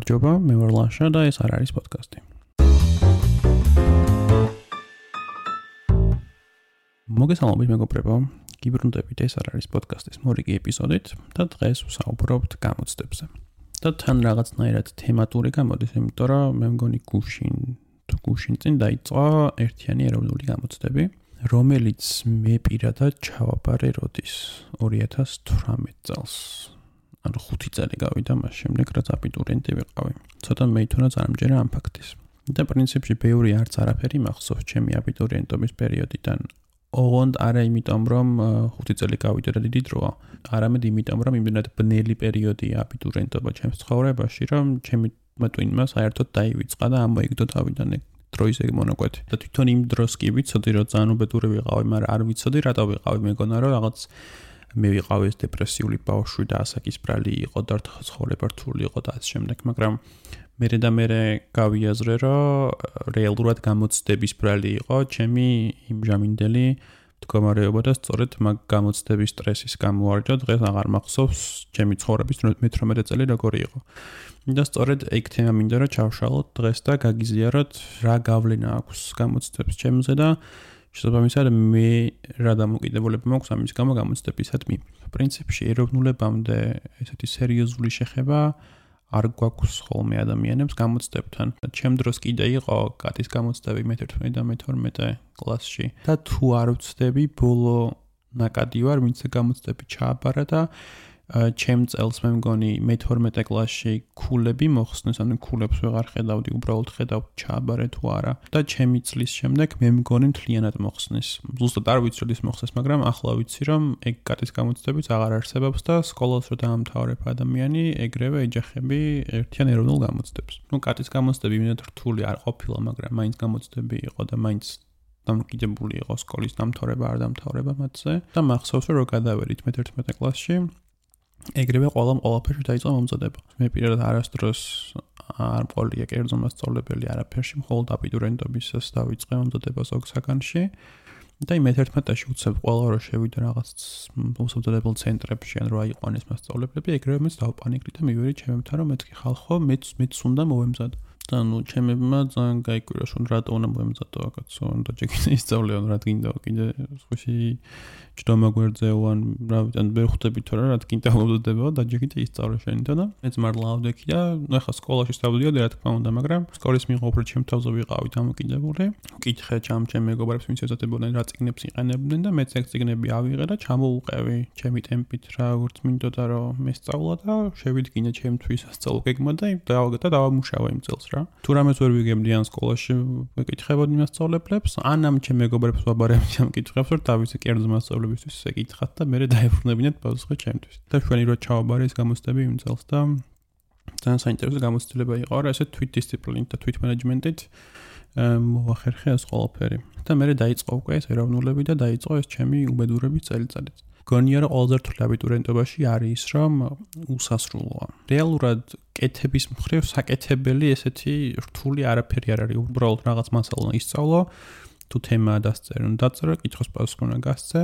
გამარჯობა, მე ვარ ლაშა და ეს არ არის პოდკასტი. მოგესალმებით მეგობრებო, გიბრუნდებით, ეს არ არის პოდკასტის მორიგი ეპიზოდით და დღეს ვსაუბრობთ გამოცდებზე. და თან რაღაცნაირად თემატური გამოდის, იმიტომ რომ მე მგონი გუშინ წინ დაიწყო ერთიანი ეროვნული გამოცდები, რომელიც მე პირადად ჩავაბარე როდის 2018 წელს. ანუ 5 წელი გავიდა მას შემდეგ, რაც აბიტურიენტი ვიყავი. ცოტა მეითხოვნა წარმჯერა ამ ფაქტის. და პრინციპში ბევრი არც არაფერი მახსოვს ჩემი აბიტურიენტობის პერიოდიდან. ოღონდ არა იმიტომ, რომ 5 წელი გავიდა და დიდი დროა, არამედ იმიტომ, რომ იმდენად ბნელი პერიოდია აბიტურიენტობა ჩემს ცხოვრებაში, რომ ჩემი ტვინმა საერთოდ დაივიწყა და ამოიგდო თავიდან დროის ეგ მონაკვეთი. და თვითონ იმ დროს კი ვიცოდი, რომ ძალიან უბედური ვიყავი, მაგრამ არ ვიცოდი რატო ვიყავი, მეგონა რომ რაღაც მე ვიყავი ეს დეპრესიული ბავშვი და ასაკისბრალი იყო და ცხოვრება რთული იყო და ასე შემდეგ, მაგრამ მერე გავიაზრე, რომ რეალურად გამოცდების ბრალი იყო ჩემი იმჟამინდელი მდგომარეობა და სწორედ მაგ გამოცდების სტრესის გამო ვარჯო დღეს აღარ მახსოვს ჩემი ცხოვრების 18 წელი როგორი იყო. და სწორედ ეგ თემა მინდა რომ ჩავშალოთ დღეს და გაგიზიაროთ რა გავლენა აქვს გამოცდებს ჩემზე და შესაბამისად მე რა დამოკიდებულება მაქვს ამის გამო გამოცდებისადმი. პრინციპში ეროვნულებამდე ესეთი სერიოზული შეხება არ გვაქვს ხოლმე ადამიანებს გამოცდებთან. ჩემ დროს კიდე იყო კატის გამოცდები მე-11 და მე-12 კლასში და თუ არ ვცდები ბოლო ნაკადი ვარ, ვინც გამოცდები ჩააბარა და ჩემ წელს მე მგონი მე-12 კლასში ქულები მოხსნეს, ანუ ქულებს ვეღარ ხედავდი, უბრალოდ ხედავდი ჩააბარე თუ არა და ჩემი წლის შემდეგ მე მგონი მთლიანად მოხსნეს. ზუსტად არ ვიცი როდის მოხსნეს, მაგრამ ახლა ვიცი რომ ეგ კატის გამოცდებიც აღარ არსებობს და სკოლას რო დაამთავრებ ადამიანი, ეგრევე ეჯახები ერთიან ეროვნულ გამოცდებს. კატის გამოცდები იმდენად რთული არ ყოფილა, მაგრამ მაინც გამოცდები იყო და მაინც დამოკიდებული იყო სკოლის დამთავრება არ დამთავრება მათზე და მახსოვს რომ გადავედით მე-11 კლასში ეგრევე ყველაფერში დაიწყო მომზადება. მე პირადად არასდროს არ მყოლია კერძო მასწავლებელი არაფერში, მხოლოდ აბიტურიენტობისას დავიწყე მომზადება ზოგ საგანში და მე-11-ში უცებ ყველა რო შევიდა რაღაც მომზადებელ ცენტრებში, ან რა იყვანეს მასწავლებლები, ეგრევე მეც დავპანიკდი და მივედი ჩემებთან, რომ მეთქი ხალხო, მეც უნდა მოვემზადო. და ჩემებმა ძალიან გაიკვირა, რომ რატო უნდა მოემზადო კაცო, და ჯერ ისწავლეო, რა გინდა კიდე სხვაში ჯდომა გვერძეო, ან რა ვიცი, ან ვერ ხვდებით თორე რა გინდა მომზადებაო და ჯერ კიდე ისწავლე შენით და მეც მართლა ავდექი და ახლა სკოლაში დავდიოდი რა თქმა უნდა, მაგრამ სკოლის მიღობრი ჩემ თავზე ვიყავი დამოკიდებული. ვკითხე ჩემ მეგობრებს, ვინც ეზოდებოდნენ რა წიგნებს იყენებდნენ და მეც ეგ წიგნები ავიღე და ჩამოუყევი ჩემი ტემპით რა როგორც მინდოდა რომ მესწავლა და შევიდგინე ჩემთვის სასწავლო გეგმა და დავამუშავა იმ წელს. თუ რამეს ვერ ვიგებდი ან სკოლაში ვეკითხებოდი მასწავლებლებს, ან ამ ჩემ მეგობრებს ვაბარებდი ამ კითხვებს, რომ დავიცე კერძო მასწავლებისთვის ეკითხათ და მე დაებრუნებინათ პასუხი ჩემთვის. და ჩვენი რო ჩავაბარე ეს გამოცდები იმ წელს და ძალიან საინტერესო გამოცდილება იყო, რა ესე თვითდისციპლინით და თვითმენეჯმენტით მოახერხე ეს ყველაფერი. და მე დაიწყო უკვე ეს ეროვნულები და დაიწყო ეს ჩემი უბედურების წელიწადიც. გონია რომ ყველაზე რთული აბიტურიენტობაში არის რომ უსასრულოა. რეალურად კეთების მხრივ საკეთებელი ესეთი რთული არაფერი არ არის. უბრალოდ რაღაც მასალა ისწავლო, თუ თემა დაწერო, კითხვის პასუხი უნდა გასცე,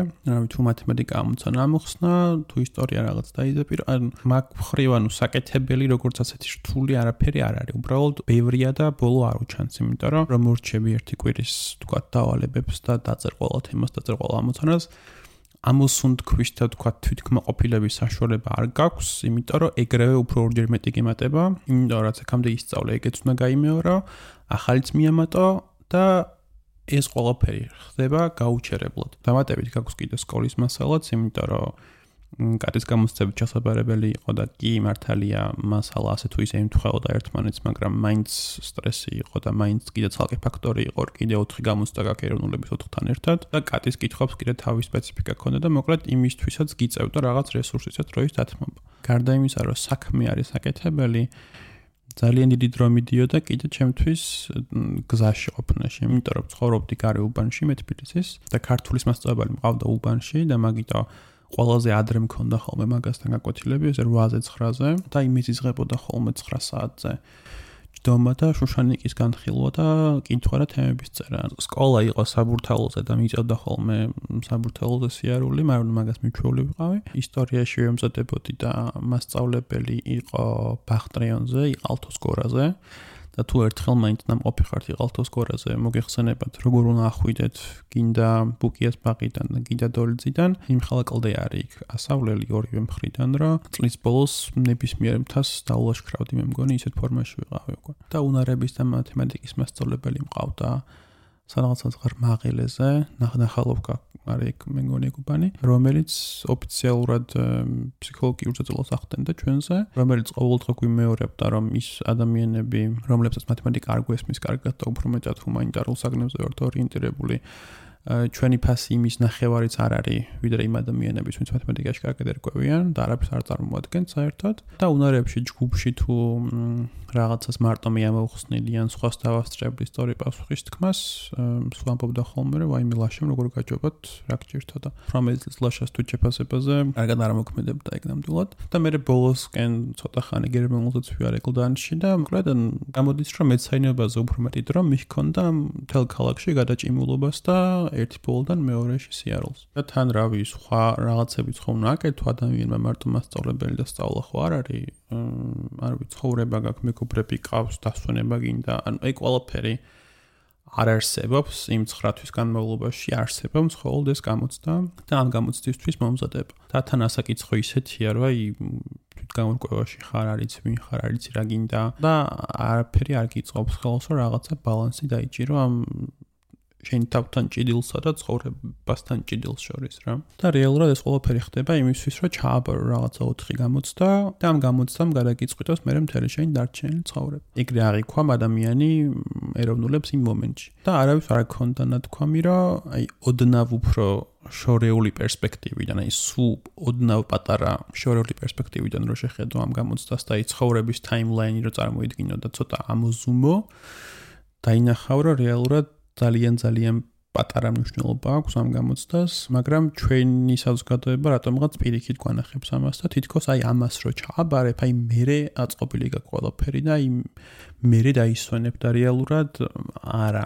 თუ მათემატიკა ამოცანა ამოხსნა, თუ ისტორია რაღაც დაიზეპირო, ან მაგ მხრივ ანუ საკეთებელი როგორც ასეთი რთული არაფერი არ არის. უბრალოდ ბევრია და ბოლო არ უჩანს, იმიტომ რომ მორჩები ერთი კვირის თქვა დავალებებს და დაწერ ყველა თემას, დაწერ ყველა ამოცანას. ამოსუნთქვის და თქვა თვითკმაყოფილების საშუალება არ გაქვს, იმიტომ რომ ეგრევე უფრო ორჯერ მეტი გემატება, იმიტომ რაც აქამდე ისწავლე, ეგეც უნდა გაიმეორო, ახალიც მიამატო და ეს ყველაფერი ხდება გაუჩერებლად. დამატებით გაქვს კიდე სკოლის მასალაც, იმიტომ რომ კატის გამოცდებით ჩასაბარებელი იყო და კი მართალია მასალა ასე თუ ისე ემთხვეოდა ერთმანეთს, მაგრამ მაინც სტრესი იყო და მაინც კიდე ცალკე ფაქტორი იყო, კიდე 4 გამოცდა გაქვს ეროვნულების 4-თან ერთად და კატის კითხვებს კიდე თავის სპეციფიკა ჰქონდა და მოკლედ იმისთვისაც გიწევდა რაღაც რესურსისაც დროის დათმობა. გარდა იმისა, რომ საქმე არის საკეთებელი, ძალიან დიდი დრო მიდიოდა კიდე ჩემთვის გზაში ყოფნაში, იმიტომ რომ ცხოვრობდი გარე უბანში მე თბილისის და ქართულის მასწავლებელი მყავდა უბანში და მაგიტო ყველაზე ადრე მქონდა ხოლმე მაგასთან გაკვეთილები, ესე 8-ზე 9-ზე და იმის იზღებოდა ხოლმე 9 საათზე. ჯდომა და შუშანიკის განხილვა და კითხვა და თემების წერა. სკოლა იყო საბურთალოზე და მიწევდა ხოლმე საბურთალოზე სიარული, მაგრამ მაგას მიჩვეული ვიყავი. ისტორიაში ვემზადებოდი და მასწავლებელი იყო ბახტრიონზე, იყალთოს გორაზე. და თუ ერთხელ მაინც ნამყოფი ხართ იყალთოს გორაზე, მოგეხსენებათ, როგორ უნდა ახვიდეთ გინდა ბუკიას ბაღიდან და გინდა დოლიძიდან, იმ ხალაკლდე არის იქ ასავლელი ორივე მხრიდან, რომ წლის ბოლოს ნებისმიერ მთას დაულაშქრავდი, მე მგონი ისეთ ფორმაში ვიყავი უკვე. და უნარების და მათემატიკის მასწავლებელი მყავდა სადღაც მაღელეზე, ნახალოვკა არის მე მგონი გუბანი, რომელიც ოფიციალურად ფსიქოლოგიურ წაწოლას ახდენდა ჩვენზე, რომელიც ყოველდღე გვიმეორებდა, რომ ის ადამიანები, რომლებსაც მათემატიკა არ გვესმის კარგად და უფრო მეტად ჰუმანიტარულ საგნებზე ვართ ორიენტირებული, ჩვენი ფასი იმის ნახევარიც არ არის, ვიდრე იმ ადამიანების, ვინც მათემატიკაში კარგად ერკვევიან და არაფერს არ წარმოადგენს საერთოდ. და უნარებში ჯგუფში თუ რაღაცას მარტო მე ამოვხსნილი ან სხვას დავასწრებდი სწორი პასუხის თქმას, სულ ამბობდა ხოლმე, რომ ვაიმე ლაშემ როგორ გაჯობათ, რა გჭირდა და პრომეძლის ლაშას თუ ჩეფასებაზე კარგად არ მოქმედებდა ეგ ნამდვილად. და მე ბოლოსკენ ცოტა ხანი გერმანულზეც ვიარე კლდანში და მოკლედ გამოდის, რომ მეცაინებაზე უფრო მეტი დრო მიჰქონდა მთელ ქალაქში გადაჭიმულობას და ერთი ბოლოდან მეორეში სიარულს. და თან რავი, სხვა რაღაცებიც ხომ უნდა აკეთო ადამიანმა მარტო მასწავლებელი და სწავლა ხო არ არის, არ ვიცი, ცხოვრება გაქვს, მეგობრები ყავს, დასვენება გინდა, ანუ ეგ ყველაფერი არ არსებობს იმ 9 თვის განმავლობაში, არსებობს მხოლოდ ეს გამოცდა და ამ გამოცდისთვის მომზადება. და თან ასაკითხო ისეთია, რომ აი თვითგამორკვევაში ხარ, არიცი ვინ ხარ, არიცი რა გინდა და არაფერი არ გიწყობს ხელს, რომ რაღაცა ბალანსი დაიჭირო ამ შენ თავთან ჭიდილსა და ცხოვრებასთან ჭიდილს შორის რა. და რეალურად ეს ყველაფერი ხდება იმისთვის, რომ ჩააბარო რაღაცა 4 გამოცდა და ამ გამოცდამ გადაგიწყვიტოს მე მთელი შენი დარჩენილი ცხოვრება. ეგრე აღიქვა ადამიანი ეროვნულებს იმ მომენტში. და არავის არ გქონდა ნათქვამი, რომ აი ოდნავ უფრო შორეული პერსპექტივიდან, აი სულ ოდნავ პატარა შორეული პერსპექტივიდან რო შეხედო ამ გამოცდას და აი ცხოვრების ტაიმლაინი რო წარმოიდგინო და ცოტა ამოზუმო, დაინახავ, რომ რეალურად ძალიან პატარა მნიშვნელობა აქვს ამ გამოცდას, მაგრამ ჩვენი საზოგადოება რატომღაც პირიქით გვანახებს ამას და თითქოს აი ამას რო ჩააბარებ, აი მერე აწყობილი გაქვს ყველაფერი და აი მერე დაისვენებ და რეალურად არა.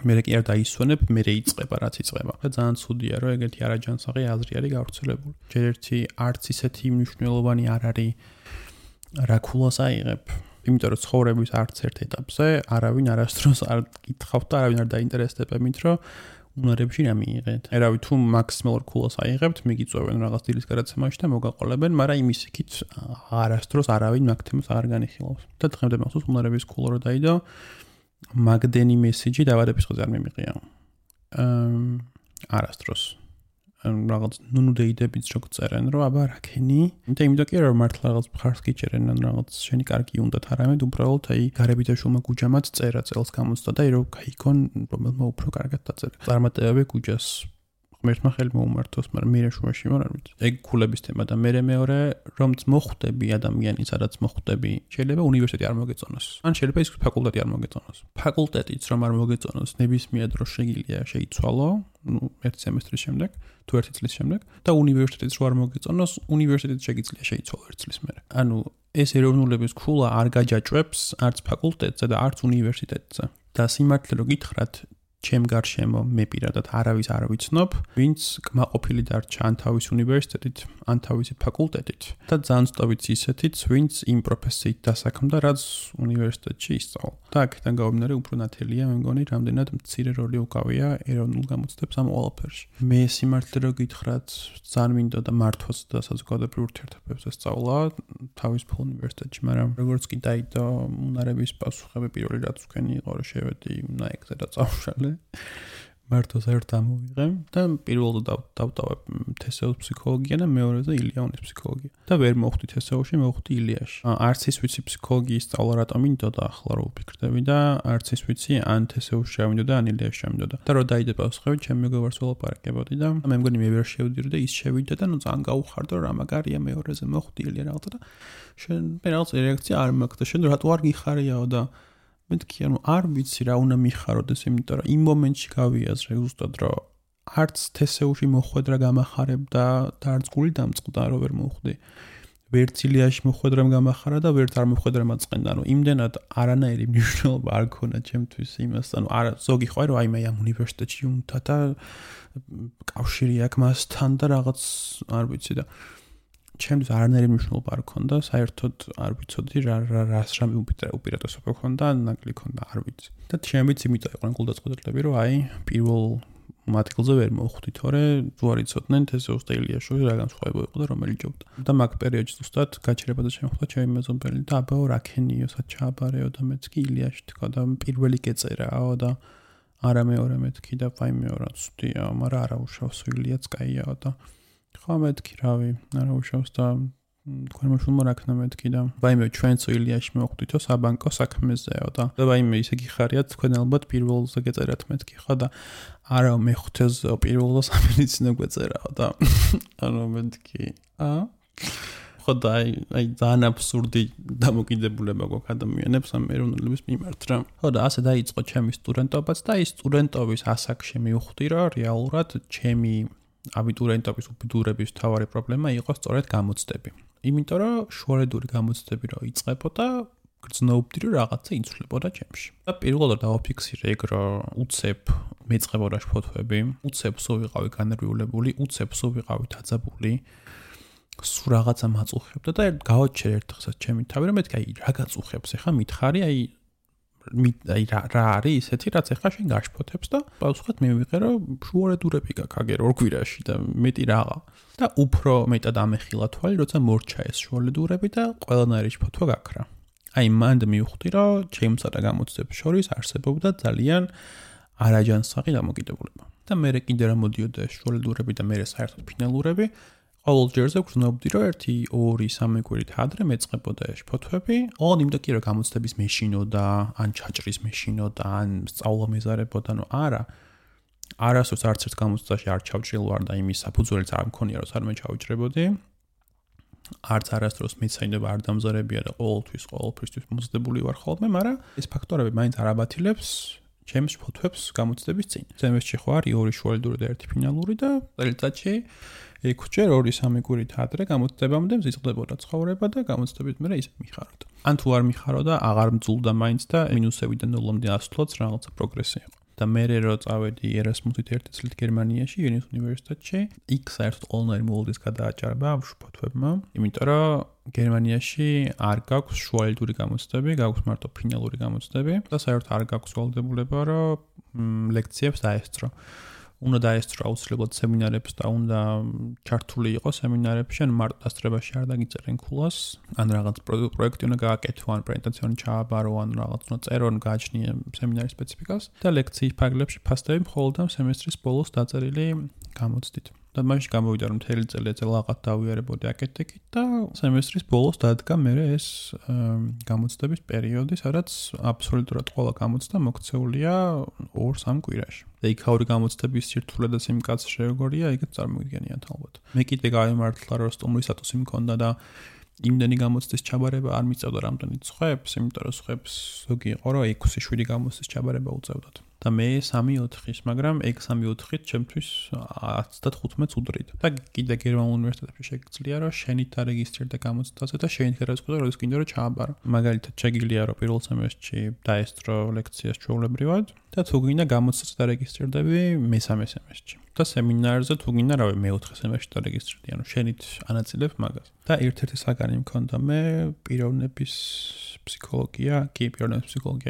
მერე კი არ დაისვენებ, მერე იწყება რაც იწყება. და ძალიან ცუდია, რომ ეგეთი არაჯანსაღი აზრი არის გავრცელებული. ჯერ ერთი არც ისეთი მნიშვნელოვანი არ არის რა ქულას აიღებ. იმიტომ რომ ცხოვრების არც ერთ ეტაპზე არავინ არასდროს არ კითხავთ და არავინ არ დაინტერესდება იმით, რომ უნარებში რა მიიღეთ. ერავი თუ მაქსიმალურ ქულას აიღებთ, მიგიწვევენ რაღაც დილის გადაცემაში და მოგაყოლებენ, მაგრამ იმის იქით არასდროს არავინ მაგ თემას არ განიხილავს. და დღემდე მახსოვს უნარების ქულა რო დაიდო, მაგდენი მესიჯი დაბადების დღეზე არ მიმიყია. არასდროს. რაღაც ნუნუდეიდებიც რო წერენ, რომ აბა რა ქენი? იმიტომ კი რომ მართლა რაღაც მხარს გიჭერენ, ან რაღაც შენი კარგი უნდათ არამედ უბრალოდ აი გარებითაშულმა გუჯამაც წერა წელს გამოცდა და რომ გაიქონ რომელმა უფრო კარგად დაწერა. წარმატებები გუჯას ღმერთმა ხელი მოუმართოს, მაგრამ მე შუაში ვარ, არ ვიცი. ეგ ქულების თემა და მე მეორე რომც მოხვდები ადამიანი, სადაც მოხვდები, შეიძლება უნივერსიტეტი არ მოგეწონოს. ან შეიძლება ის ფაკულტეტი არ მოგეწონოს. ფაკულტეტიც რომ არ მოგეწონოს, ნებისმიერ დროს შეგიძლია შეიცვალო, ერთ სემესტრის შემდეგ, თუ ერთი წლის შემდეგ და უნივერსიტეტიც რო არ მოგეწონოს, უნივერსიტეტიც შეგიძლია შეიცვალო ერთ წლის მერე. ანუ ეს ეროვნულების ქულა არ გაჯაჭვებს არც ფაკულტეტზე და არც უნივერსიტეტზე. და სიმართლე რო გითხრათ, ჩემ გარშემო მე პირადად არავის არ ვიცნობ, ვინც კმაყოფილი დარჩა ან თავის უნივერსიტეტით, ან თავისი ფაკულტეტით და ძალიან სწორიც ისეთიც, ვინც იმ პროფესიით დასაქმდა, რაც უნივერსიტეტში ისწავლა. და აქედან გამომდინარე უფრო ნათელია, მე მგონი, რამდენად მცირე როლი უკავია ეროვნულ გამოცდებს ამ ყველაფერში. მე სიმართლე რო გითხრათ, ძალიან მინდოდა მართვაც და საზოგადოებრივ ურთიერთობებზე სწავლა თავისუფალ უნივერსიტეტში, მაგრამ როგორც კი დაიდო უნარების პასუხები პირველი რაც თქვენი იყო, რომ შევედი ნაექზე და წავშალე მარტო საერთოდ ამოვიღე და პირველად დავტოვებ თესეოს ფსიქოლოგია და მეორეზე ილიანის ფსიქოლოგია. და ვერ მოვხვდი თესეოში, მოვხვდი ილიაში. არც ის ვიცი ფსიქოლოგიის სწავლა რატომ მინდოდა, ახლა რო ვფიქრდები და არც ის ვიცი ან თესეოში ჩავინდოდა, ან ილიაში ჩავინდოდა. და რო დაიდება პასუხები, ჩემი მეგობარს ველაპარაკებოდი და მე მგონი მე ვერ შევდირი და ის შევიდა და ნუ ძალიან გაუხარდა რა მაგარია მეორეზე მოვხვდი ილია რაღაცა და შენ მე რაღაც რეაქცია არ მაქვს და შენ რატო არ გიხარიაო და მეთქი ანუ არ ვიცი რა უნდა მიხაროდეს, იმიტომ რომ იმ მომენტში გავიაზრე ზუსტად რომ არც თესეუში მოხვედრა გამახარებდა და არც გული დამწყდა რომ ვერ მოვხვდი. ვერც ილიაში მოხვედრემ გამახარა და ვერც არ მოხვედრემ აწყენდა. ანუ იმდენად არანაირი მნიშვნელობა არ ქონა ჩემთვის იმას. ანუ არა ზოგი ხო რომ აი მე ამ უნივერსიტეტში უნდა და კავშირი აქვს მასთან და რაღაც არ ვიცი და ჩემთვის არანაირი მნიშვნელობა არ ქონდა. საერთოდ არ ვიცოდი რას რამე უპირატესობა ქონდა, ნაკლი ქონდა, არ ვიცი. და ჩემიც იმიტომ იყვნენ გულდაწყვეტილები რომ აი პირველ მათგილზე ვერ მოვხვდი, თორე თუ არ იცოდნენ თესეუს და ილიაში რა განსხვავება იყო და რომელი ჯობდა. და მაგ პერიოდში ზუსტად გაჩერება და შემოხვდა ჩემი მეზობელი და აბაო რაკენიოსაც ჩააბარეო და მეც კი ილიაში თქვა და პირველი გეწერაო და არა მეორე მეთქი და ვაიმე რა ცუდია, მაგრამ არა უშავს ილიაც კაიაო და ხო მეთქი რავი, არა უშავს და თქვენ მოშულმა რაკნა მეთქი და ვაიმე ჩვენც ილიაში მოვხვდითო საბანკო საქმეზეო და ვაიმე ისე გიხარიათ თქვენ ალბათ პირველზე გეწერათ მეთქი ხო და არა მე ხვთეს პირველზე სამედიცინო გვეწერაო და ანუ მეთქი ხო და აი ძალიან აბსურდი დამოკიდებულება გვაქვს ადამიანებს ამ ეროვნულების მიმართ რა. ხო და ასე დაიწყო ჩემი სტუდენტობაც და ის სტუდენტობის ასაკში მივხვდი რომ რეალურად ჩემი აბიტურიენტობის უბედურების მთავარი პრობლემა იყო სწორედ გამოცდები. იმიტომ რომ შუალედური გამოცდები რო იწყებოდა გრძნობდი რომ რაღაცა იცვლებოდა ჩემში. და პირველად დავაფიქსირე ეგ რომ უცებ მეწყებოდა ფოტოები, უცებ სულ ვიყავი განერვიულებული, უცებ სულ ვიყავი დაძაბული. სულ რაღაცა მაწუხებდა და გავაჩერე ერთხელაც ჩემი თავი რომ მეთქი აი რა გაწუხებს ახლა მითხარი აი რა არის ისეთი რაც ახლა შენ გაშფოთებს და პასუხად მივიღე რომ შუალედურები გაქვს აგერ ორ კვირაში და მეტი რაღა და უფრო მეტად ამეხილა თვალი როცა მორჩა ეს შუალედურები და ყველანაირი ფოტო გაქრა. აი მანდ მივხვდი რომ ჩემსა და გამოცდებს შორის არსებობდა ძალიან არაჯანსაღი დამოკიდებულება. და მე კიდე რა მოდიოდა ეს შუალედურები და მე საერთოდ ფინალურები ყოველ ჯერზე გრძნობდი რომ 1-2-3 კვირით ადრე მეწყებოდა ეს ფოტოები. ოღონდ იმდა კი რომ გამოცდების მეშინოდა, ან ჩაჭრის მეშინოდა, ან სწავლა მეზარებოდა, ნუ არა. არასდროს არც ერთ გამოცდაში არ ჩავჭრილვარ და იმის საფუძველიც არ მქონია რომ არ მეჩავჭრებოდი. არც არასდროს მეცაინება არ დამზარებია და ყოველთვის მოძდებული ვარ ხოლმე, მაგრამ ეს ფაქტორები მაინც არ აბათილებს ჩემს ფოტოებს გამოცდების წინ. ზემესში ხო არის 2 შუალედური და 1 ფინალური და წელიწადში 6-ჯერ 2-3 კვირით ადრე გამოცდებამდე მზიწყდებოდა ცხოვრება და გამოცდებით მე ისე მიხაროთ. ან თუ არ მიხაროდა, აღარ მძულდა მაინც და მინუსებიდან ნულამდე ასვლაც რაღაცა პროგრესი იყო. და მე რო წავედი ერასმუსით 1 წლით გერმანიაში, ვენის უნივერსიტეტში, იქ საერთოდ ყველანაირი მოულდის გადააჭარბა ამ ფოტოებმა, იმიტომ რომ გერმანიაში არ გაქვს შუალედური გამოცდები, გაქვს მარტო ფინალური გამოცდები და საერთოდ არ გაქვს ვალდებულება რომ ლექციებს დაესწრო. უნდა დაესწრო აუცილებლად სემინარებს და უნდა ჩართული იყოს სემინარებში, ან მარტო დასწრებაში არ დაგიწერენ ქულას, ან რაღაც პროექტი უნდა გააკეთო, ან პრეზენტაცია ჩააბარო, ან რაღაც უნდა წერო, ან გააჩნიე სემინარის სპეციფიკას და ლექციის ფარგლებში ფასდები მხოლოდ ამ სემესტრის ბოლოს დაწერილი გამოცდით. და მაშინ გამოვიდა რომ მთელი წელი ეცელაღად დავიარებოდი აკეთდებით და სემესტრის ბოლოს დადგა მე ეს გამოცდების პერიოდი, სადაც აბსოლუტურად ყველა გამოცდა მოქცეულია 2-3 კვირაში. და იქაური გამოცდების სირთულე და სიმკაცრე როგორია, იქაც წარმოგიდგენიათ ალბათ. მე კიდე გავიმართლა რომ სტუმრის სტატუსი მქონდა და იმდენი გამოცდის ჩაბარება არ მიწევდა რამდენიც ხვებს, იმიტომ რომ ხვებს ზოგი იყო რომ 6-7 გამოცდის ჩაბარება უწევდათ. და მე 3-4-ის, მაგრამ 6-3-4-ით ჩემთვის 10-15-ს უდრიდა. და კიდე გერმანულ უნივერსიტეტებში შეგიძლია რომ შენით დარეგისტრირდე გამოცდაზე და შენით გადაწყვეტო რომ ის კიდე რომ ჩააბარო. მაგალითად შეგიძლია რომ პირველ სემესტრში დაესწრო ლექციას ჩვეულებრივად და თუ გინდა გამოცდაზე დარეგისტრირდები მესამე სემესტრში. და სემინარზე თუ გინდა რავი მეოთხე სემესტრში დარეგისტრირდი, ანუ შენით ანაწილებ მაგას. და ერთ-ერთი საგანი მქონდა მე პიროვნების ფსიქოლოგია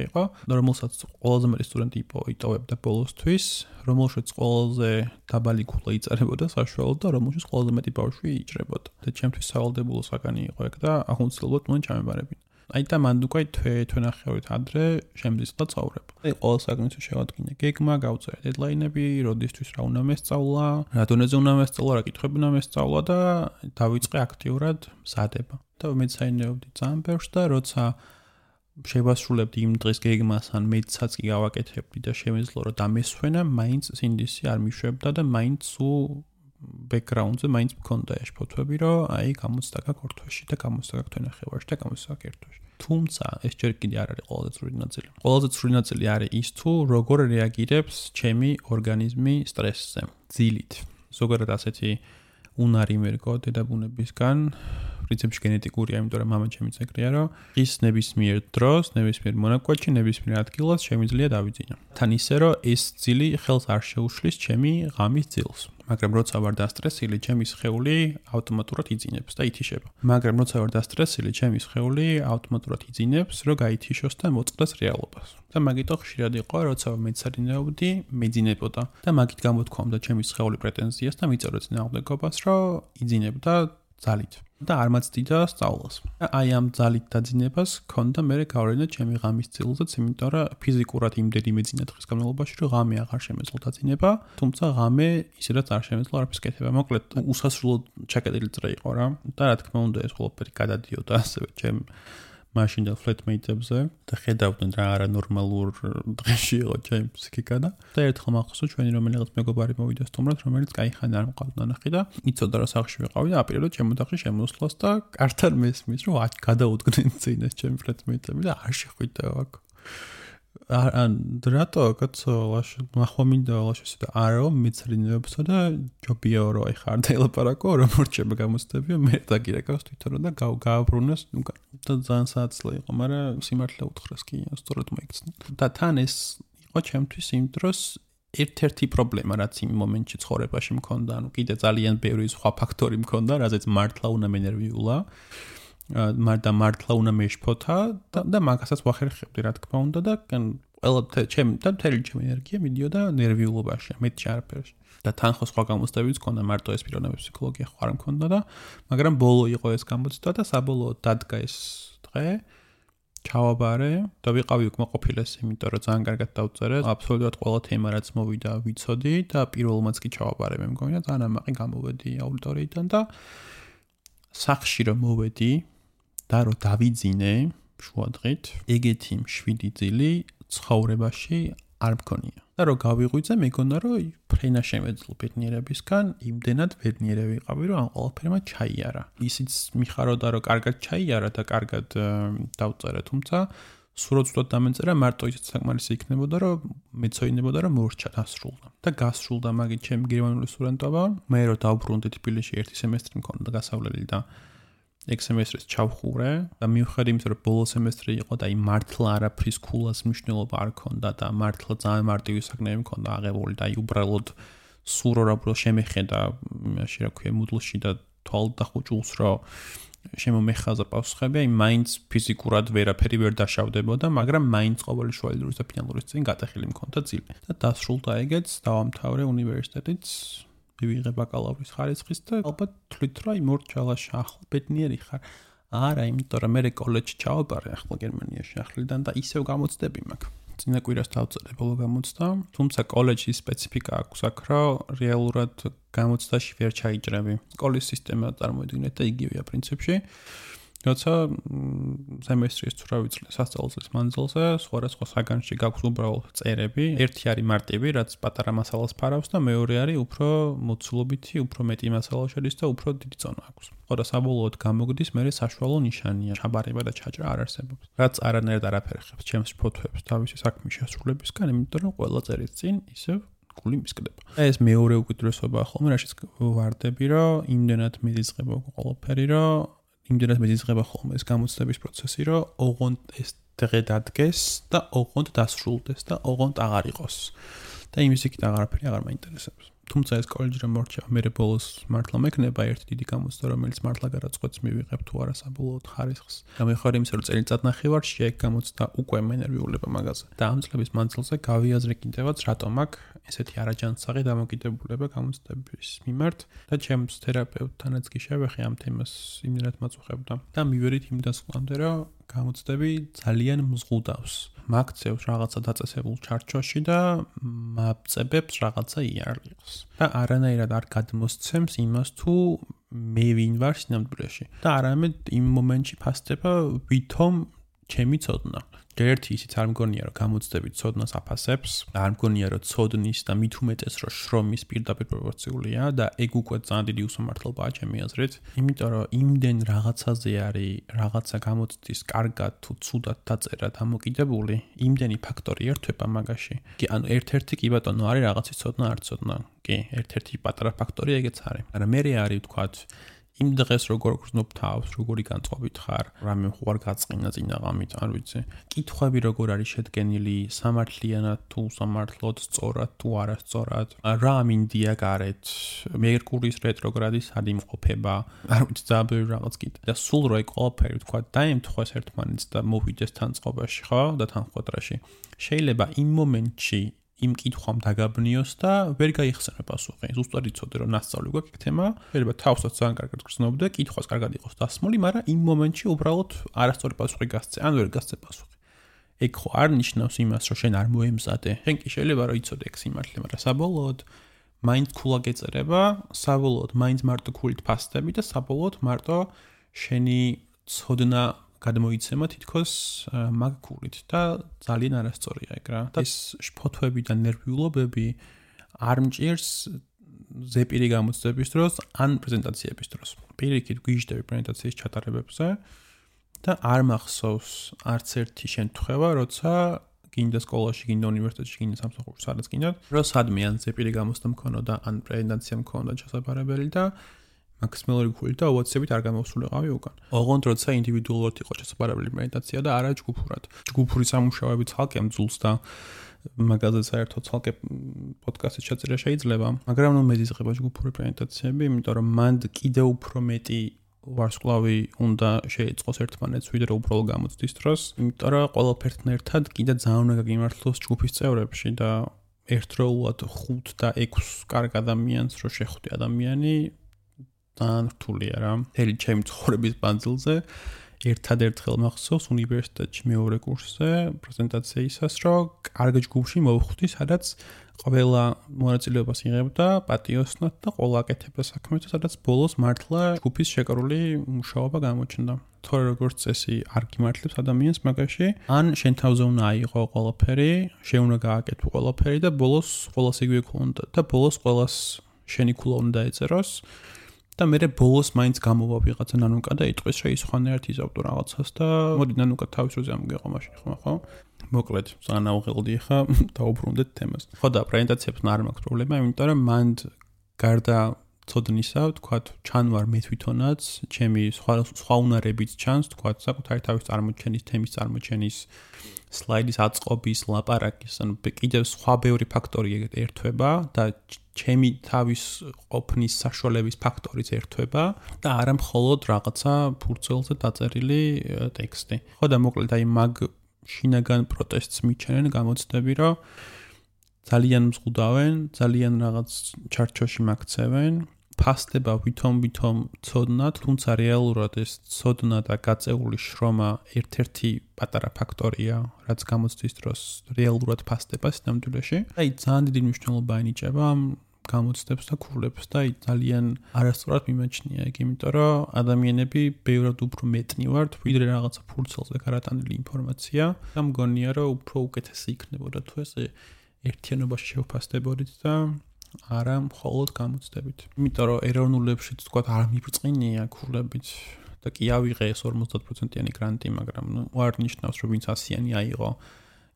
იყო, რომელსაც ყველაზე მეტი სტუდენტი იტოვებდა ბოლოსთვის, რომელშიც ყველაზე დაბალი ქულა იწერებოდა საშუალოდ და რომელშიც ყველაზე მეტი ბავშვი იჭრებოდა. და ჩემთვის სავალდებულო საგანი იყო ეგ და აუცილებლად უნდა ჩამებარებინა. აი და მანდ უკვე თვე-ნახევრით ადრე შემდისხდა ცხოვრება. აი ყოველ საგანს შევადგინე გეგმა, გავწერე დედლაინები, როდისთვის რა უნდა მესწავლა, რა დონეზე უნდა მესწავლა, რა კითხვები უნდა მესწავლა და დავიწყე აქტიურად მზადება. და მეცაინეობდი ძალიან ბევრს და როცა შევასრულებდი იმ დღის გეგმას, ან მეცაც კი გავაკეთებდი და შემეძლო რომ დამესვენა, მაინც სინდისი არ მიშვებდა და მაინც ბექგრაუნდზე მაინც მქონდა ეს ფოტოები, რომ აი გამოცდა გაქვს ორ თვეში და გამოცდა გაქვს თვე-ნახევარში და გამოცდა გაქვს ერთ თვეში. თუმცა ეს ჯერ კიდე არ არის ყველაზე ცრული ნაწილი. ყველაზე ცრული ნაწილი არის ის თუ როგორ რეაგირებს ჩემი ორგანიზმი სტრესზე, ძილით. ზოგადად ასეთი უნარი მერგო დედაბუნებისგან, პრინციპში გენეტიკურია, იმიტომ რომ მამა ჩემი ეგრეა, რომ ის ნებისმიერ დროს, ნებისმიერ მონაკვეთში, ნებისმიერ ადგილას შემიძლია დავიძინო. თან ისე რომ ეს ძილი ხელს არ შეუშლის ჩემი ღამის ძილს. მაგრამ როცა ვარ დასტრესილი, ჩემი სხეული ავტომატურად იძინებს და ითიშება. მაგრამ როცა ვარ დასტრესილი, ჩემი სხეული ავტომატურად იძინებს, რომ გაითიშოს და მოწყდეს რეალობას. და მაგიტო ხშირად იყო, როცა მეცადინეობდი, მეძინებოდა და მაგით გამოთქვამდა ჩემი სხეული პრეტენზიას და მიწერდა წინააღმდეგობას, რომ იძინებდა ძალით. და არ მაცდიდა სწავლას. აი ამ ძალით დაძინებას ქონდა მე გავლენა ჩემი ღამის ძილზეც, იმიტომ რომ ფიზიკურად იმდენი მეძინა დღის განმავლობაში, რომ ღამე აღარ შემეძლო დაძინება, თუმცა ღამე ისედაც არ შემეძლო არაფერს კეთება. მოკლედ, უსასრულო ჩაკეტილი წრე იყო რა. და რა თქმა უნდა, ეს ყველაფერი გადადიოდა ასევე ჩემ მაშინ და ფლეტმეიტებზე და ხედავდნენ რა არანორმალურ დღეში იყო ჩემი ფსიქიკა და ერთხელ მახსოვს ჩვენი რომელიღაც მეგობარი მოვიდა სტუმრად, რომელიც кайხანი არ მყავდა ნახი და იცოდა რა სახლში ვიყავი და აპირებდა ჩემ ოთახში შემოსვლას და კართან მესმის რომ გადაუდგნენ წინეს ჩემი ფლეტმეიტები და არ შეხვიდა აქ. რატო კაცო მახომინდა ლაშესი და არო მეცრინებსა და ჯობია რომ აი ხარ დაელაპარაკო რომ მორჩება გამოცდებიო მე დაგირეკავს თვითონ და გააბრუნოს და ძალიან სააცლე იყო მაგრამ სიმართლე უთხრეს კი სწორად მოიქცნა და თან ეს იყო ჩემთვის იმ დროს ერთ-ერთი პრობლემა რაც იმ მომენტში ცხოვრებაში მქონდა ანუ კიდე ძალიან ბევრი სხვა ფაქტორი მქონდა რაზეც მართლა უნდა მენერვიულა და მართლა უნდა მეშფოთა და მაგასაც ვახერხებდი რა თქმა უნდა და ყველა ჩემი ენერგია მიდიოდა ნერვიულობაში მეტი არაფერში და თან ხო სხვა გამოცდებიც მქონდა მარტო ეს პიროვნების ფსიქოლოგია ხო არ მქონდა და მაგრამ ბოლო იყო ეს გამოცდა და საბოლოოდ დადგა ეს დღე ჩავაბარე და ვიყავი უკმაყოფილეს იმიტომ რომ ძალიან კარგად დავწერე აბსოლუტურად ყველა თემა რაც მოვიდა ვიცოდი და პირველმაც კი ჩავაბარე მე მგონი და ძალიან ამაყი გამოვედი აუდიტორიიდან და სახში რომ მოვედი და რომ დავიძინე შუადღით ეგეთი მშვიდი ძილი ცხოვრებაში არ მქონია და რომ გავიღვიძე მეგონა რომ ფრენა შემეძლო ბედნიერებისგან იმდენად ბედნიერი ვიყავი რომ ამ ყველაფერმა ჩაიარა ისიც მიხაროდა რომ კარგად ჩაიარა და კარგად დავწერე თუმცა სრულად დამეწერა მარტო ისიც საკმარისი იქნებოდა რომ მეცოინებოდა რომ მორჩა დასრულდა და გასრულდა მაგით ჩემი გერმანული სტუდენტობა მე რომ დავბრუნდი თბილისში ერთი სემესტრი მქონდა გასავლელი და ეგ სემესტრის ჩავხურე და მიუხედავად იმისა რომ ბოლო სემესტრი იყო და იმ მართლა არაფრის ქულას მნიშვნელობა არ ქონდა და მართლა ძალიან მარტივი საკნები მქონდა აღებული და უბრალოდ სურო რა შემეხედა იმაში რა ქვია მუდლში და თვალ დახუჭულს რომ შემომეხაზა პასუხები აი მაინც ფიზიკურად ვერაფერი ვერ დაშავდებოდა მაგრამ მაინც ყოველი შუალედურის და ფინალურის წინ გატეხილი მქონდა ძილი და დასრულდა ეგეც დავამთავრე უნივერსიტეტიც ვიღე ბაკალავრის ხარისხის და ალბათ თვლით რომ აი მორჩალაში ახლა ბედნიერი ხარ არა იმიტომ რომ მე კოლეჯში ჩავაბარე ახლა გერმანიაში ახლიდან და ისევ გამოცდები მაქვს წინა კვირას დავწერე ბოლო გამოცდა თუმცა კოლეჯის სპეციფიკა აქვს აქ რომ რეალურად გამოცდაში ვერ ჩაიჭრები სკოლის სისტემა წარმოიდგინეთ და იგივეა პრინციპში როცა სემესტრის თუ რა ვიცი სასწავლო მანძილზე სხვადასხვა საგანში გაქვს უბრალოდ წერები ერთი არის მარტივი რაც პატარა მასალას ფარავს და მეორე არის უფრო მოცულობითი უფრო მეტი მასალა შედის და უფრო დიდი ზონა აქვს ხო და საბოლოოდ გამოგდის მე საშუალო ნიშანია ჩაბარება და ჩაჭრა არ არსებობს რაც არანაირად არაფერი ხებს ჩემს ფოთოებს თავისი საქმის შესრულებისგან იმიტომ რომ ყველა წერის წინ ისევ გული მისკდება ეს მეორე უკიდურესობაა ხოლმე რაშიც ვარდები რომ იმდენად მიზიწყება ყველაფერი რომ იმდენად მეძიწყება ხოლმე ეს გამოცდების პროცესი, რომ ოღონდ ეს დღე დადგეს და ოღონდ დასრულდეს და ოღონდ აღარ იყოს. და იმის იქით აღარაფერი აღარ მაინტერესებს. თუმცა ეს კოლეჯი რომ მორჩა, მე ბოლოს მართლა მექნება ერთი დიდი გამოცდა, რომელიც მართლა გადაწყვეტს მივიღებ თუ არა საბოლოოდ ხარისხს. და მე ხარ იმის რომ წელიწად ნახევარში ეგ გამოცდა უკვე მენერვიულება მაგაზე. და ამ წლების მანძილზე გავიაზრე კიდევაც რატომ აქ ესეთი არაჯანსაღი დამოკიდებულება გამოცდების მიმართ და ჩემს თერაპევტთანაც კი შევეხე ამ თემას იმდენად მაწუხებდა. და მივერით იმ დასკვნამდე რომ გამოცდები ძალიან მზღუდავს. მაქცევს რაღაცა დაწესებულ ჩარჩოში და მაწებებს რაღაცა იარაღს. და არანაირად არ გადმოსცემს იმას თუ მე ვინ ვარ სინამდვილეში. და არამედ იმ მომენტში ფასდება ვითომ ჩემი ცოდნა. ერთი ისიც არ მგონია რომ გამოცდები ცოდნას აფასებს, არ მგონია რომ ცოდნის და მით უმეტეს რომ შრომის პირდაპირ პროპორციულია და ეგ უკვე ძალიან დიდი უსამართლობაა ჩემი აზრით. იმიტომ რომ იმდენ რაღაცაზე არის რაღაცა გამოცდის კარგად თუ ცუდად დაწერა დამოკიდებული, იმდენი ფაქტორი ერთვება მაგაში. კი ანუ ერთ-ერთი კი ბატონო არის რაღაცის ცოდნა არ ცოდნა. კი, ერთ-ერთი პატარა ფაქტორი ეგეც არის. მაგრამ მე არის ვთქვათ იმ დღეს როგორ გრძნობ თავს, როგორი განწყობით ხარ, რამე ხوار გაწყინა წინაღამით, არ ვიცი. კითხვები როგორ არის შედგენილი, სამართლიანად თუ სამართლოდ, სწორად თუ არასწორად, რა მინდია გარეთ, მერკურის რეტროგრადის სად იმყოფება, არ ვიცი, ძალიან ბევრი რაღაც კიდე. და სულ რო ეგ ყველაფერი თქვა, დაემთხვეს ერთმანეთს და მოვიდეს თან წყობაში, ხო? და თან ხვედრაში. შეიძლება იმ მომენტში იმ კითხვამ დაგაბნიოს და ვერ გაიხსენებ პასუხი. ზუსტად იცოდე რომ ნასწავლი გვაქვს ეგ თემა, შეიძლება თავსაც ძალიან კარგად გრძნობდე, კითხვას კარგად იყოს დასმული, მაგრამ იმ მომენტში უბრალოდ არასწორი პასუხი გასცე, ან ვერ გასცე პასუხი. ეგ ხო არ ნიშნავს იმას, რომ შენ არ მოემზადე. შენ კი შეიძლება რომ იცოდე ეგ სიმართლე, მაგრამ საბოლოოდ მაინც ქულა გეწერება, საბოლოოდ მაინც მარტო ქულით ფასდები და საბოლოოდ მარტო შენი ცოდნა გადმოიცემა თითქოს მაგ ქულით და ძალიან არასწორია ეგ რა. და ეს შფოთვები და ნერვიულობები არ მჭირს ზეპირი გამოცდების დროს ან პრეზენტაციების დროს. პირიქით გვიჟდები პრეზენტაციის ჩატარებებზე და არ მახსოვს არც ერთი შემთხვევა, როცა გინდა სკოლაში, გინდა უნივერსიტეტში, გინდა სამსახურში, სადაც გინდათ, რომ სადმე ან ზეპირი გამოცდა მქონოდა, ან პრეზენტაცია მქონოდა შესაძლებელი და მაქსიმალური ქულით და ოვაცებით არ გამოვსულიყავი უკან. ოღონდ როცა ინდივიდუალურად იყო შესაძლებელი პრეზენტაცია და არა ჯგუფურად. ჯგუფური სამუშაოები ცალკე მძულს და მაგაზე საერთოდ ცალკე პოდკასტის ჩაწერა შეიძლება, მაგრამ ნუ მეზიზღება ჯგუფური პრეზენტაციები, იმიტომ რომ მანდ კიდევ უფრო მეტი ვარსკვლავი უნდა შეეწყოს ერთმანეთს, ვიდრე უბრალოდ გამოცდის დროს, იმიტომ რომ ყველაფერთან ერთად კიდე ძალიან უნდა გაგიმართლოს ჯგუფის წევრებში და ერთდროულად 5 და 6 კარგ ადამიანს რო შეხვდე ადამიანი ძალიან რთულია რა. მთელი ჩემი ცხოვრების მანძილზე ერთადერთხელ მახსოვს უნივერსიტეტში მეორე კურსზე პრეზენტაციისას, რომ კარგ ჯგუფში მოვხვდი, სადაც ყველა მონაწილეობას იღებდა პატიოსნად და ყველა აკეთებდა საქმეს, სადაც ბოლოს მართლა ჯგუფის შეკრული მუშაობა გამოჩნდა. თორე როგორც წესი არ გიმართლებს ადამიანს მაგაში, ან შენ თავზე უნდა აიღო ყველაფერი, შენ უნდა გააკეთო ყველაფერი და ბოლოს ყველას იგივე ქონდა და ბოლოს ყველას შენი ქულა უნდა ეწეროს. და მე ბოლოს მაინც გამოვა ვიღაცა ნანუკა და იტყვის რომ ის ხანერთ იზავდო რაღაცას და მოდი ნანუკა თავის როზე ამგეყო მაშინ ხო? მოკლედ, ძალიან აუღელდი ხა დაუბრუნდეთ თემას. ხო და პრეზენტაციებს არ მაქვს პრობლემა, იმიტომ რომ მანდ გარდა ცოდნისა, თქვათ, ჩანვარ მე თვითონაც, ჩემი სხვა უნარებიც ჩანს, თქვათ, საკუთარი თავის წარმოჩენის, თემის წარმოჩენის, სლაიდის აწყობის, ლაპარაკის, ანუ კიდევ სხვა ბევრი ფაქტორი ერთვება და ჩემი თავის ყოფნის საშუალების ფაქტორიც ერთვება და არა მხოლოდ რაღაცა ფურცელზე დაწერილი ტექსტი. ხო და მოკლედ აი მაგ შინაგან პროტესტს მიჩენენ გამოცდები, რომ ძალიან მზღუდავენ, ძალიან რაღაც ჩარჩოში მაქცევენ, ფასდება ვითომ ცოდნად, თუმცა რეალურად ეს ცოდნა და გაწეული შრომა ერთ-ერთი პატარა ფაქტორია, რაც გამოცდის დროს რეალურად ფასდება სინამდვილეში. აი ძალიან დიდი მნიშვნელობა ენიჭება გამოცდებს და ქულებს და აი ძალიან არასწორად მიმაჩნია ეგ, იმიტომ რომ ადამიანები ბევრად უფრო მეტნივართ, ვიდრე რაღაცა ფურცელზე გარატანილი ინფორმაცია და მგონია რომ უფრო უკეთესი იქნებოდა თუ ეს ერთიანობაში შევფასდებოდით და არა მხოლოდ გამოცდებით. იმიტომ რომ ეროვნულებშიც თქვა არ მიბრწყინია ქულებით და კი ავიღე ეს 50%-იანი გრანტი, მაგრამ ნუ არ ნიშნავს რომ ვინც 100-იანი აიღო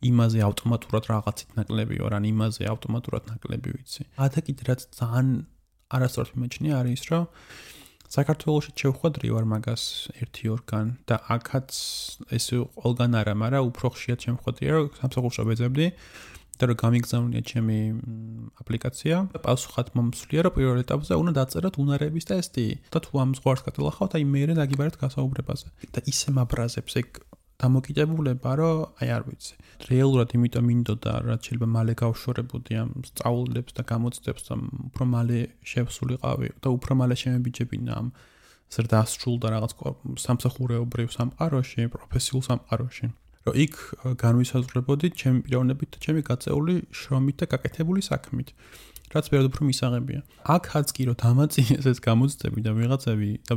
იმაზე ავტომატურად რაღაცით ნაკლები ვარ, ან იმაზე ავტომატურად ნაკლები ვიცი. და კიდე რაც ძალიან არასწორად მიმაჩნია არის რომ საქართველოში შევხვედრი ვარ მაგას 1-2-გან და აქაც ეს ყველგან არა, მაგრამ უფრო ხშირად შემხვედრია რომ სამსახურში ვეძებდი და რომ გამიგზავნია ჩემი აპლიკაცია და პასუხად მომსვლია რომ პირველ ეტაპზე უნდა დაწეროთ უნარების ტესტი და თუ ამ ზღვარს გადალახავთ, აი მეერე დაგიბარეთ გასაუბრებაზე და ისე მაბრაზებს ეგ დამოკიდებულება, რომ აი არ ვიცი. რეალურად იმიტომ მინდოდა, რაც შეიძლება მალე გავშორებოდი ამ სწავლებს და გამოცდებს და უფრო მალე შევსულიყავი და უფრო მალე შემებიჯებინა ამ ზრდასრულ და რაღაც სამსახურეობრივ სამყაროში, პროფესიულ სამყაროში. რომ იქ განვისაზღვრებოდი ჩემი პიროვნებით და ჩემი გაწეული შრომით და გაკეთებული საქმით. რაც ბევრად უფრო მისაღებია. აქაც კი რომ დამაწინეს ეს გამოცდები და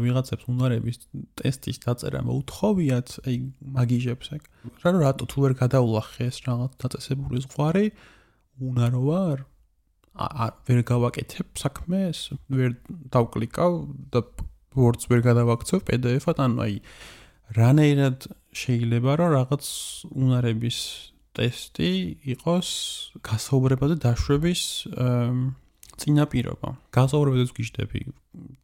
ვიღაცებს უნარების ტესტის დაწერა მოუთხოვიათ, აი მაგიჟებს ეგ. რატო თუ ვერ გადავლახე ეს რაღაც დაწესებული ზღვარი, უნარო ვარ? ვერ გავაკეთებ საქმეს, ვერ დავკლიკავ და Word-ს ვერ გადავაქცევ PDF-ად, ანუ აი რანაირად შეიძლება რომ რაღაც უნარების ტესტი იყოს გასაუბრებაზე დაშვების წინაპირობა. გასაუბრებელს გიждები.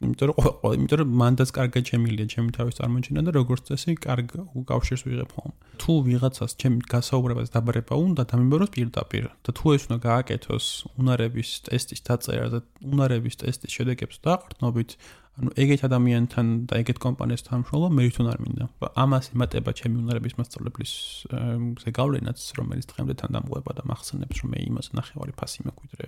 იმიტომ რომ მანდაც კარგად შემილია ჩემი თავის წარმოჩენა და როგორც წესი კარგ უკავშირს ვიღებ ხოლმე. თუ ვიღაცას ჩემი გასაუბრებას დაბარება უნდა დამიმბაროს პირდაპირ და თუ ეს უნდა გააკეთოს უნარების ტესტის დაწერა და უნარების ტესტის შედეგებს დაყრდნობით, ანუ ეგეთ ადამიანთან და ეგეთ კომპანიასთან მშრალობა მე თვითონ არ მინდა. ამას ემატება ჩემი უნარების მასწავლებლის ზეგავლენაც, რომელიც დღემდე თან დამღვება და მახსენებს, რომ მე იმას ნახევარი ფასი მეკვიდრე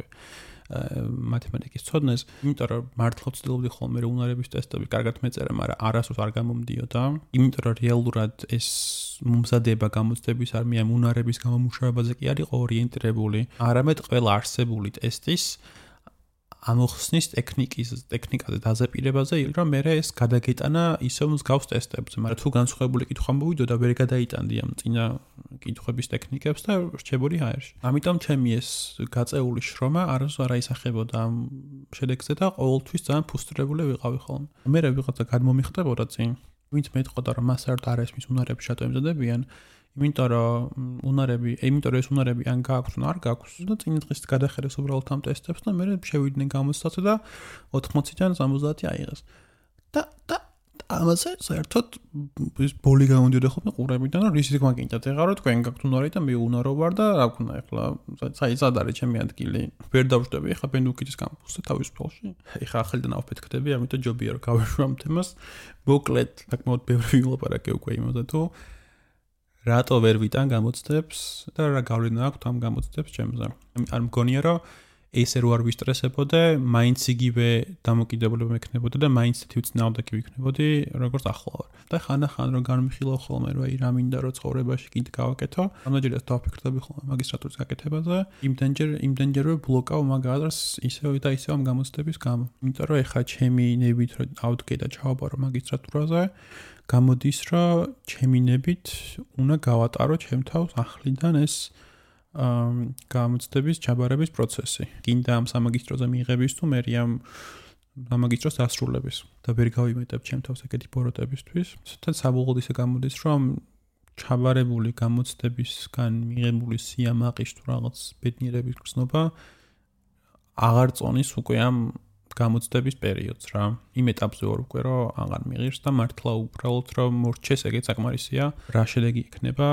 მათემატიკის ცოდნას, იმიტომ რომ მართლა ვცდილობდი ხოლმე რომ უნარების ტესტები კარგად მეწერა, მაგრამ არასდროს არ გამომდიოდა. იმიტომ რომ რეალურად ეს მომზადება გამოცდების არმია უნარების გამომუშავებაზე კი არ იყო ორიენტირებული, არამედ ყველა არსებული ტესტის ამოხსნის ტექნიკაზე დაზაპირებაზე, რომ მე ეს გადაგეტანა ისევ მსგავს ტესტებზე, მაგრამ თუ განსხვავებული კითხვა მოვიდოდა, ვერ გადაიტანდი ამ წინა კითხვების ტექნიკებს და რჩებოდი ჰაერში. ამიტომ ჩემი ეს გაწეული შრომა არასდროს არ აისახებოდა ამ შედეგზე და ყოველთვის ძალიან ფუსტრირებული ვიყავი ხოლმე. მე ვიღაცა გადმომიხდებოდა წინ, ვინც მეტყოდა რომ მას არ ესმის უნარები შატო ემზადებიან, იმიტომ რომ ეს უნარები ან გააქვს ან არ გააქვს და წინ დღეს გადახედეს უბრალოდ ამ ტესტებს და მე შევიდნენ გამოცდაზე და 80-დან 70 აიღეს. და ამაზე საერთოდ ის ბოლი გამოდიოდა ხოლმე ყურებიდან რომ რისიც მაგინდათ ეხლა რომ თქვენ გაქვთ უნარი და მე უნარო ვარ და რა ვქნა ეხლა საერთოდ არის ჩემი ადგილი. ვერ დავждები ეხლა ბენდუკიძის კამპუსზე თავისუფალში. ეხლა ახალიდან ავფეთქდები, ამიტომ ჯობია რომ გავეშვ ამ თემას. მოკლედ, საკმაოდ ბევრი ვილაპარაკე უკვე იმაზე თუ რატო ვერ ვიტან გამოცდებს და რა გავლენა აქვს ამ გამოცდებს ჩემზე. არ მგონია რომ ესე რო არ ვისტრესებოდე, მაინც იგივე დამოკიდებულება მექნებოდა და მაინც თვითწინააღმდეგი ვიქნებოდი, როგორც ახლა ვარ. და ხან-ახან რო განვიხილავ ხოლმე რომ აი რა მინდა რომ ცხოვრებაში კიდე გავაკეთო, ამაჯერაც დავფიქრდები ხოლმე მაგისტრატურის გაკეთებაზე, იმდენჯერვე ბლოკავ მაგას ისევ და ისევ ამ გამოცდების გამო. იმიტომ რომ ეხა ჩემი ნებით რომ ავდგე და ჩავაბარო მაგისტრატურაზე, გამოდის რომ ჩემი ნებით უნდა გავატარო ჩემ თავს ახლიდან ეს გამოცდების ჩაბარების პროცესი. კიდე ამ სამაგისტროზე მიიღების თუ მე ამ სამაგისტროს დასრულების და ვერ გავიმეტებ ჩემ თავს ეგეთი ბოროტებისთვის. და საბოლოოდ ისე გამოდის რომ ჩაბარებული გამოცდებისგან მიღებული სიამაყის თუ რაღაც ბედნიერების გრძნობა აღარ წონის უკვე ამ გამოცდების პერიოდს რა. იმ ეტაპზე ვარ უკვე რომ აღარ მიღირს და მართლა უბრალოდ რომ მორჩეს ეგეც საკმარისია, რა შედეგი იქნება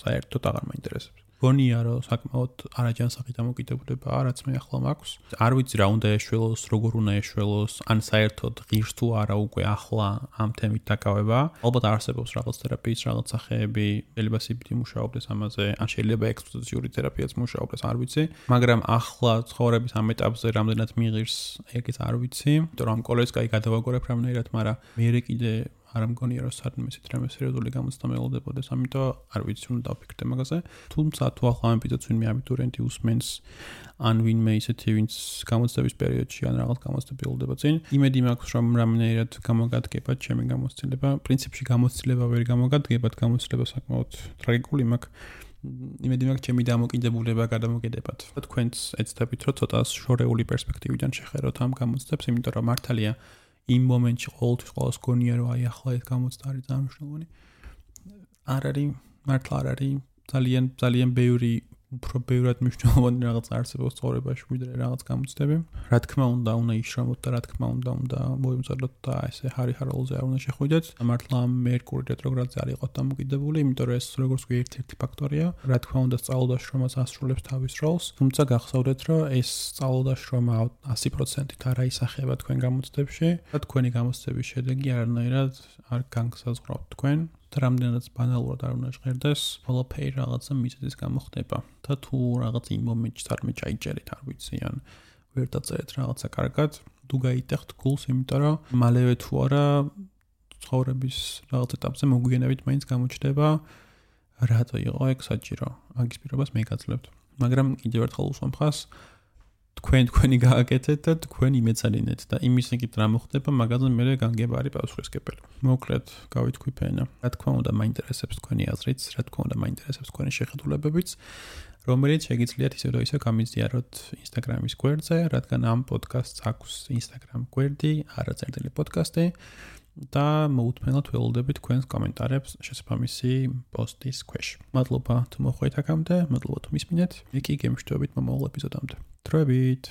საერთოდ აღარ მაინტერესებს. გონია რომ საკმაოდ არაჯანსაღი დამოკიდებულება რაც მე ახლა მაქვს. არ ვიცი რა უნდა ეშველოს, როგორ უნდა ეშველოს, ან საერთოდ ღირს თუ არა უკვე ახლა ამ თემით დაკავება. ალბათ არსებობს რაღაც თერაპიის რაღაც სახეები, შეიძლება CBT მუშაობდეს ამაზე, ან შეიძლება ექსპოზიციური თერაპიაც მუშაობდეს, არ ვიცი. მაგრამ ახლა ცხოვრების ამ ეტაპზე რამდენად მიიღირს, ეგეც არ ვიცი. იმიტომ რომ ამ კოლეჯს კაი გადავაგორებ რამდენად, მაგრამ მე კიდე არ მგონია რომ სადმე ისეთ რამე სერიოზული გამოცდა მეულდებოდეს, ამიტომ არ ვიცი უნდა დავფიქრდე მაგაზე. თუმცა თუ ახლა ამ ეპიზოდს ვინმე აბიტურიენტი უსმენს, ან ვინმე ისეთი ვინც გამოცდების პერიოდში ან რაღაც გამოცდები ულდება წინ, იმედი მაქვს რომ რამდენად გამოგადგებათ ჩემი გამოცდილება. პრინციპში გამოცდილება ვერ გამოგადგებათ, გამოცდილება საკმაოდ ტრაგიკული მაქვს. იმედი მაქვს ჩემი დამოკიდებულება გადამოგედებათ. თქვენც ეცდებით რომ ცოტა შორეული პერსპექტივიდან შეხედოთ ამ გამოცდებს, იმიტომ რომ მართალია იმ მომენტში ყოველთვის ყოველს გონია რომ აი ახლა ეს გამოცდა არის ძალიან მნიშვნელოვანი. არ არის, მართლა არ არის, ძალიან ბევრი უფრო ბევრად მნიშვნელოვანი რაღაც არსებობს ცხოვრებაში ვიდრე რაღაც გამოცდები. რა თქმა უნდა იშრომოთ და რა თქმა უნდა მოიმზადოთ და ესე ჰარი-ჰაროლზე არ უნდა შეხვიდეთ. მართლა მერკური რეტროგრადზე არ იყოთ დამოკიდებული, იმიტომ რომ ეს როგორც კი ერთ-ერთი ფაქტორია. რა თქმა უნდა სწავლულდაშრომაც ასრულებს თავის როლს, თუმცა გახსოვდეთ რომ ეს სწავლულდაშრომა 100%-ით არ აისახება თქვენ გამოცდებში და თქვენი გამოცდების შედეგი არანაირად არ განგსაზღვრავთ თქვენ. რამდენადაც ბანალურად არ უნდა ჟღერდეს, ყველაფერი რაღაცა მიზეზის გამო ხდება. და თუ რაღაც იმ მომენტში თარმე ჩაიჭერეთ, არ ვიცი, ან ვერ დაწერეთ რაღაცა კარგად, თუ გაიტეხთ გულს, იმიტომ რომ მალევე თუ არა ცხოვრების რაღაც ეტაპზე მოგვიანებით მაინც გამოჩნდება, რატო იყო ეგ საჭირო. მაგის პირობას მე გაძლევთ. მაგრამ კიდევ ერთხელ უსვამხას თქვენი გააკეთეთ და თქვენ იმეცადინეთ და იმის იგივე რა მოხდება, მაგაზე მე განგება არის პასუხისმგებელი. მოკლედ, გავითქვი ფენა. რა თქმა უნდა, მაინტერესებს თქვენი აზრიც, რა თქმა უნდა, მაინტერესებს თქვენი შეხედულებებიც, რომელიც შეგიძლიათ ისევ და ისევ გამიზიაროთ Instagram-ის გვერდზე, რადგან ამ პოდკასტს აქვს Instagram გვერდი, არაწერილი პოდკასტი და მოუთმენლად ველოდებით თქვენს კომენტარებს შესაბამისი პოსტის ქვეშ. მადლობა თუ მოხვედით აქამდე, მადლობა თუ მისმინეთ. მე კი გემშვიდობით მომავალ ეპიზოდამდე. დროებით.